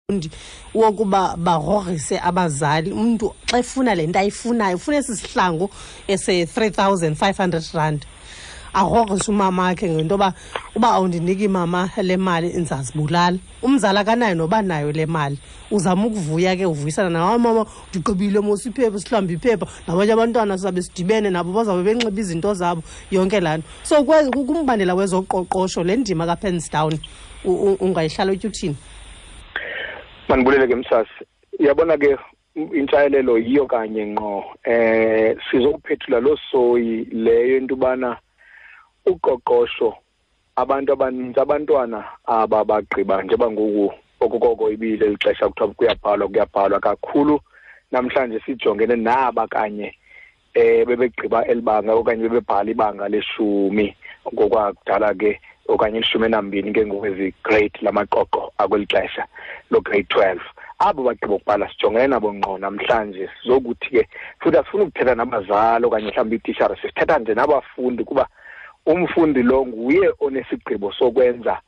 Abafundi wokuba bagrogrise abazali. Umntu xa efuna le nto ayifunayo, ufuna esi sihlangu ese-R3500, agrogrise umama wakhe ngento yoba uba awundiniki, mama, le mali, ndizazibulala. Umzali akanayo noba nayo le mali, uzama ukuvuya ke, uvuyisana nawe: "Mama, ndigqibile mos iphepha, sihlambe iphepha nabanye abantwana, sizabe sidibene nabo, bazawube benxiba izinto zabo," yonke laa nto. So kumbandela wezoqoqosho, le ndima ka-pens down ungayihlala utyuthini? Mandibulele ke, msasi. Uyabona ke, intshayelelo yiyo kanye ngqo. Sizokuphethula loo soyi leyo into ubana uqoqosho, abantu abanintsi, abantwana aba bagqiba njengoba ngoku okokoko ibile lixesha kuthiwa kuyabhalwa, kuyabhalwa kakhulu namhlanje, sijongene naba kanye bebegqiba elibanga okanye bebebhala ibanga leshumi ngokwakudala ke, okanye 12 ke ngokwezi grade lamaqoqo akweli xesha lo grade 12. Abo bagqiba ukubhala sijongene nabo ngqo namhlanje. Sizokuthi ke futhi asifuni ukuthetha nabazali okanye mhlawumbi iitishara, sisithetha nje nabafundi, kuba umfundi lo nguye onesigqibo sokwenza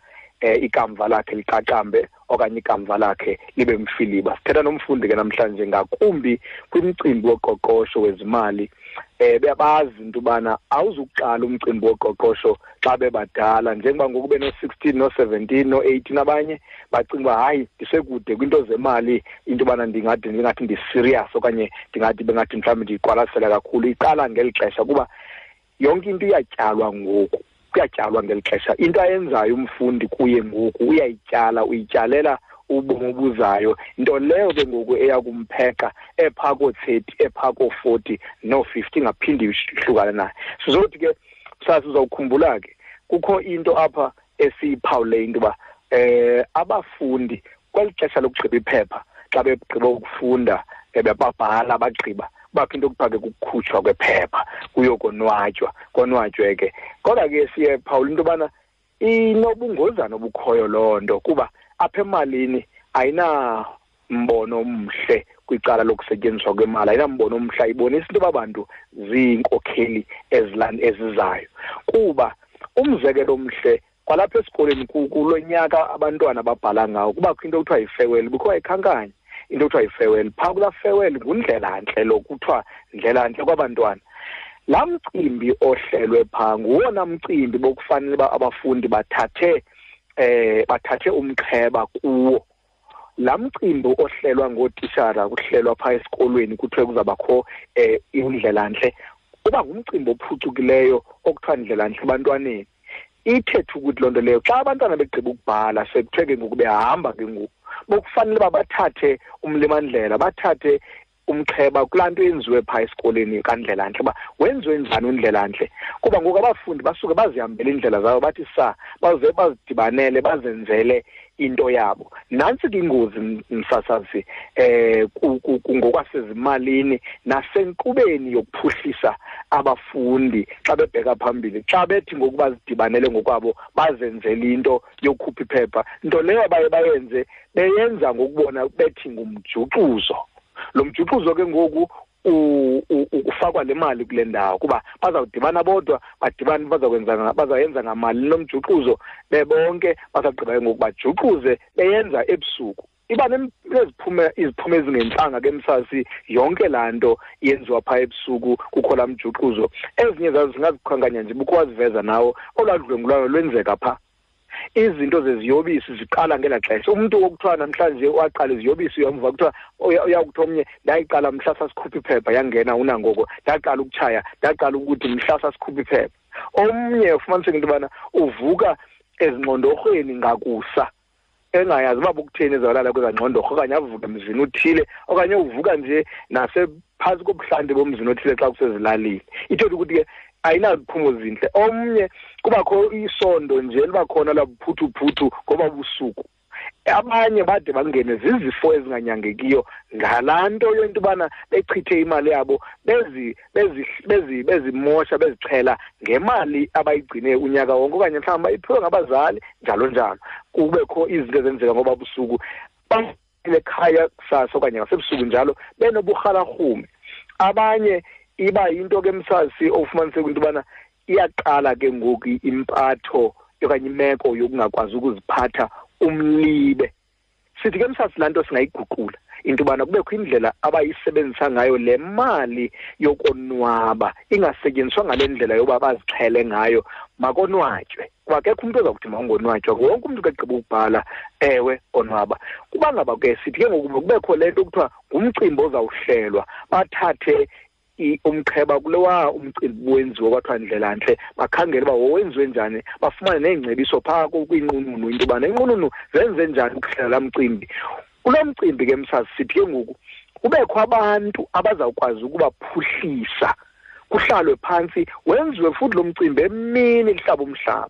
ikamva lakhe liqaqambe okanye ikamva lakhe libe mfiliba. Sithetha nomfundi ke namhlanje, ngakumbi kwimicimbi woqoqosho wezimali. Beyabazi into ubana awuzukuqala umcimbi woqoqosho xa bebadala, njengoba ngoku beno-16, no-17, no-18. Abanye bacinga uba hayi, ndisekude kwinto zemali, into yobana ndingade ndingathi ndi-serious okanye ndingathi bengathi mhlawumbi ndiyiqwalasela kakhulu. Iqala ngeli xesha, kuba yonke into iyatyalwa ngoku, kuyatyalwa ngeli xesha. Into ayenzayo umfundi kuye ngoku uyayityala, uyityalela ubomi obuzayo, nto leyo ke ngoku eya kumpheqa ephaa koo-30, ephaa koo-40, noo-50, ingaphindi ihlukane naye. Sizothi ke sasi uzawukhumbula ke kukho into apha esiyiphawule, into yoba abafundi kweli xesha lokugqiba iphepha, xa begqiba ukufunda, bebabhala bagqiba, kubakho into okuthiwa ke kukukhutshwa kwephepha, kuyokonwatywa, konwatywe ke. Kodwa ke siye phawula into yobana inobungozana obukhoyo loo nto, kuba apha emalini ayinambono omhle kwicala lokusetyenziswa kwemali, ayinambono omhle, ayibonisi into yoba bantu ziinkokheli ezizayo. Kuba umzekelo omhle kwalapha esikolweni, kulo nyaka abantwana babhala ngawo, kubakho into ekuthiwa yi-farewell. Bukho wayikhankanya into ekuthiwa yi-farewell phaa. Kulaa farewell ngundlelantle lo, kuthiwa ndlelantle kwabantwana. Laa mcimbi ohlelwe phaa nguwona mcimbi bokufanele uba abafundi bathathe umxheba kuwo. Laa mcimbi ohlelwa ngootishara, kuhlelwa phaa esikolweni, kuthiwe kuzawubakho indlelantle, uba ngumcimbi ophucukileyo okuthiwa ndlelantle ebantwaneni. Ithethe ukuthi loo nto leyo, xa abantwana begqiba ukubhala, sekuthiwe ke ngoku behamba ke ngoku, bokufanele uba bathathe umlimandlela, bathathe umxheba kulaa nto yenziwe phaa esikolweni kandlelantle, uba wenziwe njani undlelantle. Kuba ngoku abafundi basuke bazihambele iindlela zabo, bathi sa baze bazidibanele, bazenzele into yabo. Nantsi ke ingozi, msasazi, ngokwasezimalini nasenkqubeni yokuphuhlisa abafundi xa bebheka phambili, xa bethi ngoku bazidibanele ngokwabo, bazenzele into yokukhupha iphepha, nto leyo baye bayenze beyenza ngokubona bethi ngumjuxuzo. Lo mjuxuzo ke ngoku ufakwa le mali kule ndawo, kuba bazawudibana bodwa, badibane bazakwenza, bazayenza ngamali lo mjuxuzo bebonke. Bazawugqiba ke ngoku bajuxuze beyenza ebusuku, iba neziphumo, iziphumo ezingentlanga ke, msasi, yonke laa nto yenziwa phaa ebusuku kukho laa mjuxuzo. Ezinye zazo singazikhankanya nje, bukho waziveza nawo, olwaa dlwengulwano lwenzeka phaa, izinto zeziyobisi ziqala ngelaa xesha. Umntu okuthiwa namhlanje waqala iziyobisi, uyamva kuthiwa uyakuthiwa omnye, "Ndayiqala mhla sasikhupha iphepha, yangena unangoko. Ndaqala ukutshaya, ndaqala ukuthi mhla sasikhupha iphepha." Omnye ufumaniseke into yobana uvuka ezingxondorhweni ngakusa, engayazi uba bukutheni ezawulala kwezaa ngxondorho, okanye avuke emzini uthile, okanye uvuka nje nasephantsi kobuhlanti bomzini othile xa kusezilalini. Ithetha ukuthi ke ayinaziphumo zintle. Omnye kubakho isondo nje liba khona labuphuthuphuthu ngoba busuku. Abanye bade bangene zizifo ezinganyangekiyo ngalaa nto yento yobana bechithe imali yabo, bezimosha, bezixhela ngemali abayigcine unyaka wonke, okanye mhlawumbi bayiphiwe ngabazali, njalo njalo. Kubekho izinto ezenzeka ngoba busuku ekhaya kusasa okanye ngasebusuku njalo, benoburhalarhume. Abanye iba yinto ke, msasi, ofumaniseka into yobana iyaqala ke ngoku impatho okanye imeko yokungakwazi ukuziphatha, umlibe. Sithi ke msasi, laa nto singayiguqula into yobana kubekho indlela abayisebenzisa ngayo le mali yokonwaba, ingasetyenziswa ngale ndlela yoba bazixhele ngayo. Makonwatywe, kuba akekho umntu oza kuthi mawungonwatywa, wonke umntu ke gqiba ukubhala ewe onwaba. Kuba ngaba ke sithi ke ngoku kubekho le nto kuthiwa ngumcimbi ozawuhlelwa, bathathe umqheba kulowa umcimbi wenziwe kwathiwa ndlelantle, bakhangele uba wowenziwe njani, bafumane neengcebiso phaa kwiinqununu into yobana iinqununu zenze njani ukuhlela laa mcimbi. Kulo mcimbi ke msazi, sithi ke ngoku kubekho abantu abazawukwazi ukubaphuhlisa, kuhlalwe phantsi, wenziwe futhi lo mcimbi emini kuhlaba umhlaba,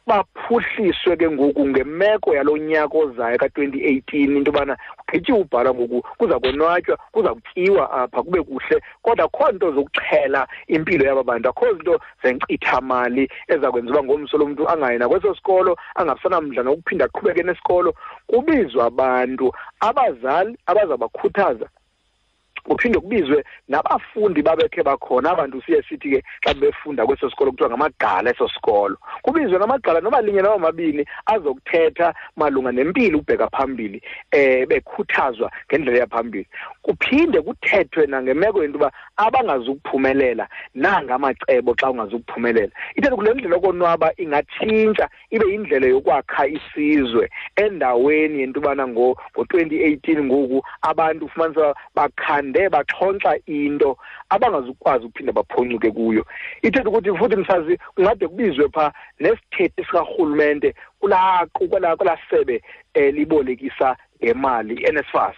baphuhliswe ke ngoku ngemeko yalo nyaka ozayo ka-2018, into yobana kugqityiwe ubhala ngoku, kuza konwatywa, kuza kutyiwa apha kube kuhle, kodwa akho nto zokuxhela impilo yaba bantu, akho zinto zenkcithamali eza kwenza uba ngomso lo mntu angayi nakweso sikolo, angabisanamdla nokuphinda aqhubeke nesikolo. Kubizwa abantu, abazali abazabakhuthaza, kuphinde kubizwe nabafundi babekhe bakhona. Abantu siye sithi ke xa befunda kweso sikolo kuthiwa ngamagqala eso sikolo, kubizwe namagqala noba linye noba mabini azokuthetha malunga nempilo ukubheka phambili, bekhuthazwa ngendlela yaphambili. Kuphinde kuthethwe nangemeko yento yoba abangazukuphumelela nangamacebo xa ungazukuphumelela. Ithetha kule ndlela yokonwaba ingatshintsha ibe yindlela yokwakha isizwe, endaweni yento yobana ngo-2018 ngoku abantu ufumanisa bakhande baxhontsa into abangazukwazi ukuphinda baphoncuke kuyo. Ithetha ukuthi futhi msazi kungade kubizwe phaa nesithethi sikarhulumente kulaa sebe elibolekisa ngemali, i-NSFAS,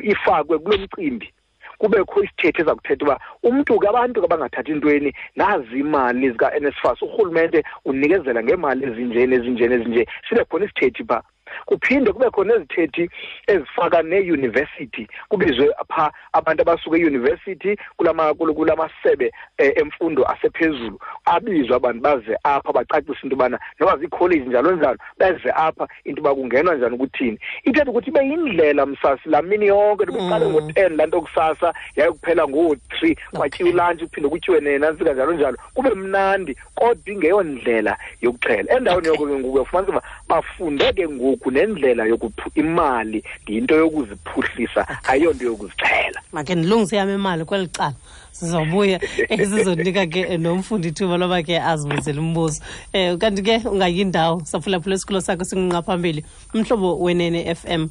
ifakwe kulo mcimbi, kubekho isithethi eza kuthetha uba umntu ke, abantu ke abangathathi ntweni, nazi imali zika-NSFAS, urhulumente unikezela ngeemali ezinje nezinje nezinje, sibe khona isithethi phaa. Kuphinde kube khona ezithethi ezifaka neeyunivesithi, kubizwe phaa abantu abasuka eyunivesithi kulamasebe emfundo asephezulu, abizwe abantu baze apha bacacise into yobana noba ziikholeji njalo njalo, beze apha into yoba kungenwa njani ukuthini. Ithetha ukuthi ibe yindlela msasi laa mini yonke, iqale ngo-10 laa nto kusasa yayokuphela ngoo-3, kwatyiwa ilantshi, kuphinde kutyiwe nenantsika njalo njalo, kube mnandi, kodwa ingeyondlela yokuxhela. Endaweni yoko ke ngoku uyafumanisa uba bafunde ke ngoku nendlela imali yinto yokuziphuhlisa, ayiyonto yokuzixhela. Makhe ndilungise yam imali kweli cala, sizobuya sizonika ke nomfundi ithuba loba ke azibuzele umbuzo. Kanti ke ungayindawo, saphulaphula isikolo sakho singunqa phambili, Umhlobo Wenene FM.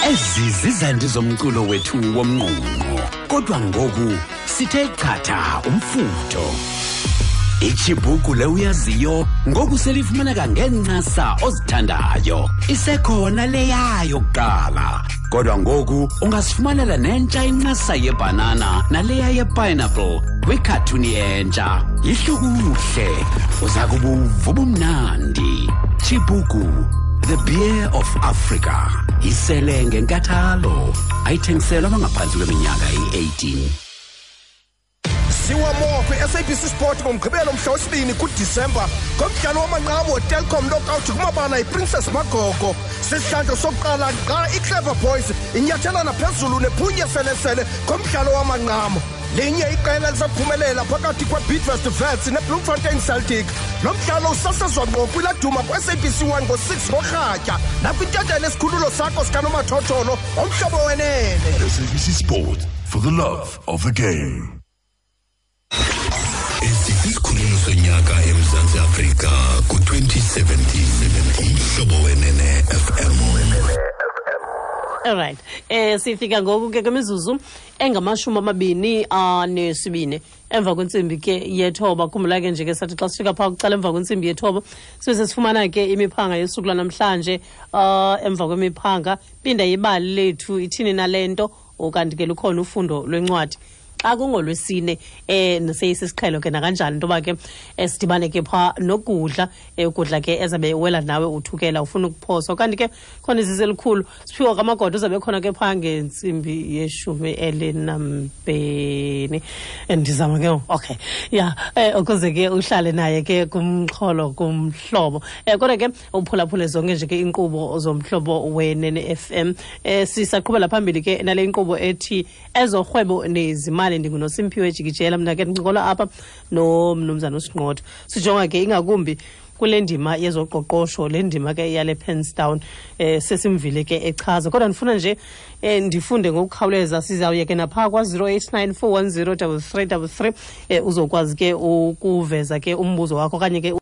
Ezi zizandi zomculo wethu womngqungqo, kodwa ngoku sithe chatha umfutho. Ichibuku le uyaziyo ngoku selifumaneka ngeencasa ozithandayo. Isekhona leyayo kuqala, kodwa ngoku ungasifumanela nentsha incasa yebhanana naleya yepineapple kwikhathuni entsha. Yihlukuhle, uza kubuva ubumnandi. Chibuku, the beer of Africa. Isele ngenkathalo, ayithengiselwa abangaphantsi kweminyaka eyi-18. Siwa more kwi-SABC Sport ngoMgqibelo mhla wesibini kuDisemba ngomdlalo wamanqamu weTelkom Knockout kumabala iPrincess Magogo. Sisihlandlo sokuqala xa iClever Boys inyathelana phezulu nephunye selesele ngomdlalo wamanqamu. Linye iqela lisaphumelela phakathi kweBidvest Wits neBloemfontein Celtic. Lo mdlalo usasazwa ngqo kwiladuma ku-SABC 1 ngo-6 ngorhatya nakwintetha esikhululo sakho sikanomathotholo Omhlobo Wenene. SABC Sport, for the love of the game. Esi sisikhululo sonyaka eMzantsi Afrika ku-2017, Umhlobo Wenene FM. Alright. Sifika ngoku ke kwimizuzu enga-22 emva kwentsimbi ke yethoba. Khumbula ke nje ke sathi xa sifika phaa kucala emva kwentsimbi yethoba sibe sesifumana ke imiphanga yosuku lwanamhlanje. Emva kwemiphanga pinda ibali lethu ithini nale nto, ukanti ke lukhona ufundo lwencwadi xa kungolwesine. Seyisisiqhelo ke nakanjani into yoba ke sidibane ke phaa nokudla, ukudla ke ezabe wela nawe uthukela ufuna ukuphoswa. Kanti ke khona izisi elikhulu siphiwa kamagoda uzabe khona ke phaa ngentsimbi ye-12. Ndizama ke, okay, ya, ukuze ke uhlale naye ke kumxholo kumhlobo. Kodwa ke uphulaphule zonke nje ke inkqubo zoMhlobo Wenene FM. Sisaqhubela phambili ke nale inkqubo ethi ezorhwebo nezimali. NdinguNosimphiwe Jikijela, mna ke ndincokola apha nomnumzana uSinqotho, sijonga ke ingakumbi Kule ndima yezoqoqosho, le ndima ke yale Penstown, sesimvile ke echaza, kodwa ndifuna nje ndifunde ngokukhawuleza. Sizawuye ke naphaa kwa-089 410 3333, uzokwazi ke ukuveza ke umbuzo wakho okanye ke